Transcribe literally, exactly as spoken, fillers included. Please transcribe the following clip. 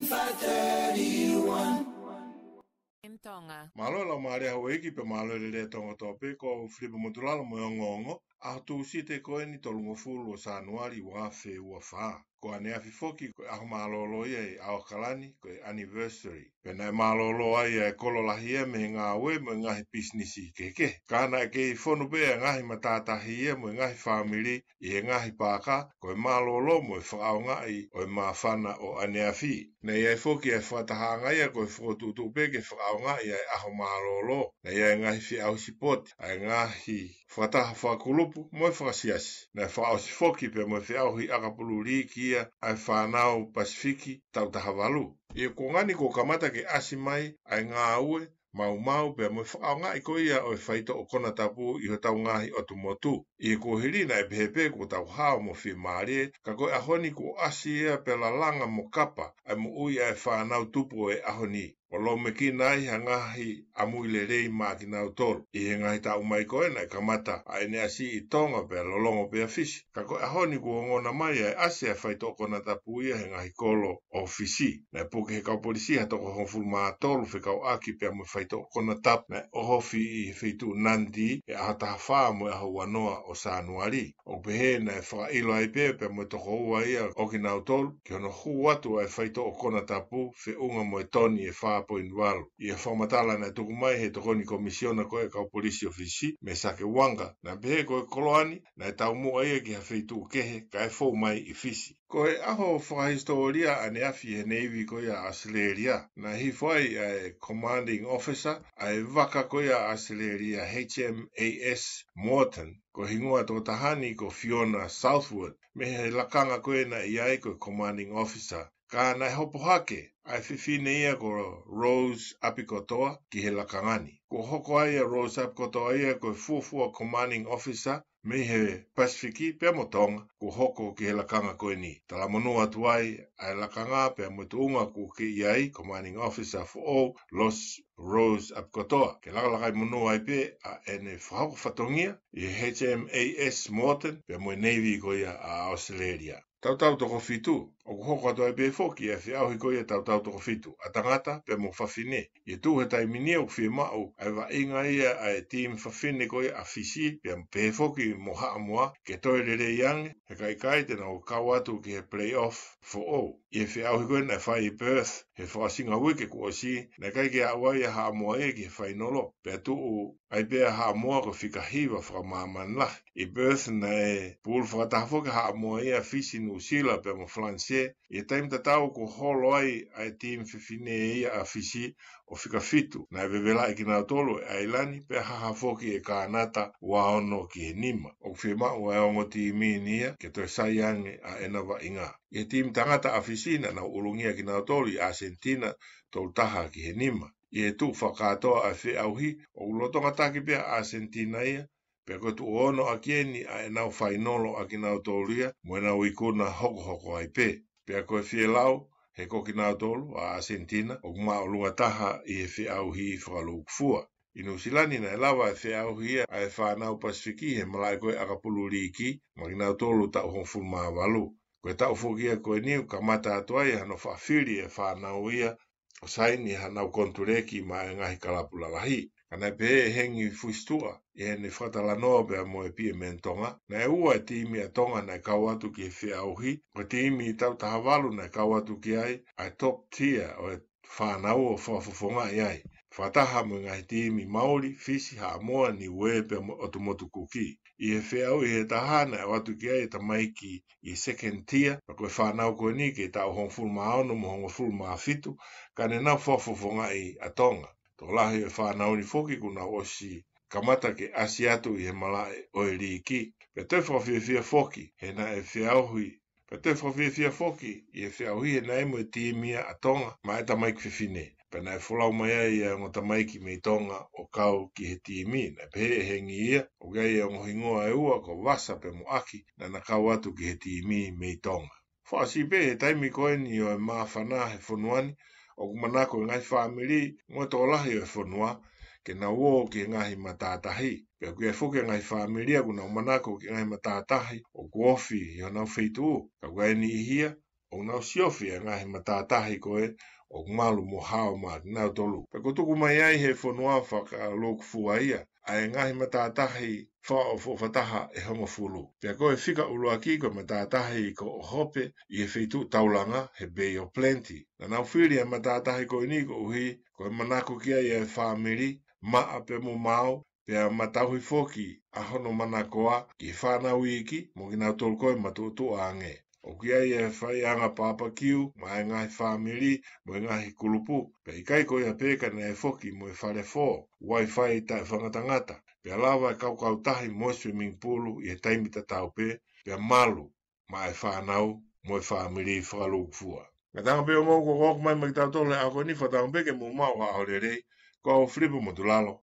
M Tonga. Mālō e laumālie ʻa houʻeiki pea mālō e lelei ʻa Tonga kotoa pē, ko Filipa Motulalo mo e ongoongo. ʻAho Tūsite ko eni tolungofulu ʻo Sānuali ua afe ua fā. Ko ʻaneafi foki ko e ʻaho mālōlō ia ʻi ʻAokalani, ko e anniversary. Pea naʻe mālōlō ai e kolo lahi ia mei he ngāue mo e ngaahi pisinisi kehekehe. Ka naʻe kei fonu pē e ngaahi matātahi ia mo e ngaahi fāmili ʻi he ngaahi paaka, ko e mālōlō mo e fakaʻaongaʻi ʻo e māfana ʻo ʻaneafi. Naʻe ʻi ai foki e fakatahaʻanga ia ko e fokotuʻutuʻu pē ke fakaʻaongaʻi ʻa e ʻaho mālōlō. Naʻe ʻi ai e ngaahi feʻauhi sipoti, ʻa e ngaahi fakataha fakakulupu mo e fakasiasi. Naʻe fakaʻosi foki pea mo e feʻauhi ʻakapulu liiki ia ʻa e fānau Pasifiki taʻu taha valu. ʻI he kuonga ni kuo kamata ke ʻasi mai ʻa e ngāue maumau pea mo e fakaʻaongaʻi ko ia ʻo e faitoʻo konatapu ʻi hotau ngaahi ʻotu motu. ʻI he kuohili naʻe pehē pē kuo tau hao mo fiemālie, ka ko e ʻaho ni kuo ʻasi ia pea lalanga mo kapa ʻa e moʻui ʻa e fānau tupu ʻo e ʻaho ni, ʻo lōmekina ai ha ngaahi ʻamui lelei maʻa kinautolu. ʻI he ngaahi taʻu mai ko ē naʻe kamata ʻa ʻEne ʻasi ʻi Tonga pea lolotonga pē ʻa Fisi. Ka ko e ʻaho ni kuo ongona mai ʻa e ʻasi ʻa e faitoʻo konatapu ia he ngaahi kolo ʻo Fisi. Naʻe puke ʻe he kau polisi ha toko hongofulu mā tolu fekauʻaki pea mo e faitoʻo konatapu naʻe ʻohofi ʻi he feituʻu Nadi he ʻaho taha fā mo e ʻaho ua noa ʻo Sānuali. ʻOku pehē naʻe fakaʻilo ai pē pea mo e tokoua ia ʻo kinautolu ki hono hū atu ʻa e faitoʻo konatapu feʻunga mo e toni ʻe fā poini valu. ʻI he fakamatala naʻe tuku mai ʻe he tokoni komisiona ko ē ʻa e kau polisi ʻo Fisi, Mesake Uanga, naʻe pehē ko e koloa ni naʻe taumuʻa ia ki ha feituʻu kehe kae fou mai ʻi Fisi. Ko e ʻaho fakahisitōlia ʻaneafi he Navy ko ia ʻa ʻAositelēlia. Naʻe hifo ai ʻa e Commanding Officer ʻa e vaka ko ia ʻa ʻAositelēlia, H M A S Morton, ko e hingoa ʻo e tokotaha ni ko Fiona Southwood, mei he lakanga ko ē naʻe ʻi ai ko e Commanding Officer. Ka naʻe hopo hake ʻa e fefine ia ko Rose ʻApikotoa ki he lakanga ni. Kuo hoko ai ʻa Rose ʻApikotoa ia ko e fuofua Commanding Officer mei he Pasifiki pea mo Tonga kuo hoko ki he lakanga ko eni. Talamonū atu ai ʻa e lakanga pea mo e tuʻunga kuo kei ʻi ai, Commanding Officer foʻou, Los Rose ʻApikotoa, ke lakalakaimonū ai pē ʻa ʻene fakahoko fatongia ʻi he H M A S Morton pea mo e Navy ko ia ʻa ʻAositelēlia. Tautau toko fitu, ʻoku hoko atu ai pē foki ʻa e feʻauhi ko ia tautau toko fitu, ʻa tangata pea mo fafine. ʻI he tuʻu he taimi ni ʻoku fiemaʻu ʻa e vaʻinga ia ʻa e timi fafine ko ia ʻa Fisi, pea pehē foki mo Haʻamoa, ke toe lelei ange, he ka ʻikai te nau kau atu ki he playoff foʻou. ʻI he feʻauhi ko ē naʻe fai ʻi Perth he fakaʻosinga uike kuo ʻosi, naʻe ʻikai ke aʻu ai ʻa Haʻamoa ia ki he fainolo, pea tuʻu ai pē ʻa Haʻamoa ko e fika hiva fakamāmani lahi. ʻI Perth naʻe pulu fakataha foki ʻa Haʻamoa ia, Fisi, Nuʻusila pea mo Falanisē, ʻi he taimi tatau kuo holo ai ʻa e timi fefine ia ʻa Fisi ʻo fika fitu. Naʻe vevelaʻi kinautolu ʻe ʻAilani pea haha foki ʻe Kānata ua ono ki he nima. ʻOku fiemaʻu ʻa e ongo timi ni ia ke toe sai ange ʻa ʻena vaʻinga. ʻI he timi tangata ʻa Fisi naʻa nau ʻulungia kinautolu ʻi ʻAsenitina tolu taha ki he nima. ʻI he tuʻu fakakātoa ʻa e feʻauhi, ʻoku lolotonga taki pē ʻa ʻAsenitina ia, pea ko e tuʻu ono ʻaki eni ʻa ʻenau fainolo ʻa kinautolu ia mo ʻenau ikuna hokohoko ai pē. Pea ko e fielau, he ko kinautolu ʻa ʻAsenitina ʻoku māʻolunga taha ʻi he feʻauhi fakalūkufua. ʻI Nuʻusila ni naʻe lava e feʻauhi ia ʻa e fānau Pasifiki he malaʻe ko ē ʻakapulu liiki, mo kinautolu taʻu hongofulu mā valu. Ko e taʻu foki ia ko eni ʻoku kamata atu ai hano faʻa fili e fānau ia ʻo saini hanau konituleki maʻa e ngaahi kalapu lalahi. Ka naʻe pehē ʻe Hengi Fuhisituʻa ʻi heʻene fakatalanoa pea mo e P M N Tonga, naʻe ua e timi ʻa Tonga naʻe kau atu ki he feʻauhi. Ko e timi taʻu taha valu naʻe kau atu ki ai ʻa e top tier ʻo e fānau ʻo fakafofongaʻi ai, fakataha mo e ngaahi timi Mauli, Fisi, Haʻamoa, Niuē pea mo e ʻOtu Motu Kuki. ʻI he feʻauhi ʻe taha naʻe ʻatu ki ai e tamaiki ʻi he second tier, pea ko e fānau ko eni kei taʻu hongofulu mā ono mo hongofulu mā fitu, ka ne nau fakafofongaʻi ʻa Tonga. Tokolahi e fānau ni foki kuo nau ʻosi kamata ke ʻasi atu ʻi he malaʻe ʻo e liiki. Pea toe fakafiefia foki he naʻe feʻauhi, pea toe fakafiefia foki ʻi he feʻauhi he naʻe mo e timi ia ʻa Tonga maʻa e tamaiki fefine. Pea naʻe folau mai ai ʻa e ongo tamaiki mei Tonga ʻo kau ki he timi. Naʻe pehē ʻe Hengi ia, ʻoku ʻi ai e ongo hingoa ʻe ua ko Vasa pea mo ʻAki, naʻa na kau atu ki he timi mei Tonga. Fakaʻosi pē he taimi ko eni ʻo e māfana he fonua ni, ʻoku manako e ngaahi fāmili mo e tokolahi ʻo e fonua ke nau ō ki he ngaahi matātahi. Pea ʻoku ʻi ai foki e ngaahi fāmili ia ʻoku nau manako ki he ngaahi matātahi ʻoku ofi ʻi honau feituʻu. Ka ʻoku ʻi ai e niʻihi ia ʻoku nau siofi e ngaahi matātahi ko ē ʻoku malu mo hao maʻa kinautolu. Pea kuo tuku mai ai ʻe he fonua fakalūkufua ia ʻa e ngaahi matātahi fakaʻofoʻofataha ʻe hongofulu. Pea ko e fika ʻuluaki ko e matātahi ko ʻOhope ʻi he feituʻu taulanga he Bay of Plenty. Naʻa nau fili e matātahi ko eni koeʻuhi ko e manako ki ai e fāmili, maʻa pea mo maau, pea ma tauhi foki ʻa hono manakoa ki he fānau iiki mo kinautolu ko ē matuʻotuʻa ange. ʻOku ʻi ai e faiʻanga papakiu maʻa e ngaahi fāmili mo e ngaahi kulupu, pea ʻikai ko ia pē ka naʻe foki mo e fale fō, Wi-Fi taʻefakangatangata, pea lava e kaukautahi mo e swimming pool ʻi he taimi tatau pē, pea malu maʻa e fānau mo e fāmili fakalūkufua. Ngataʻanga pē ʻo mou ko ʻoku ʻomai maʻa kitautolu he ʻaho ko eni, fakatauange pē ke mou maʻu ha ʻaho lelei. Ko au Filipo Motulalo,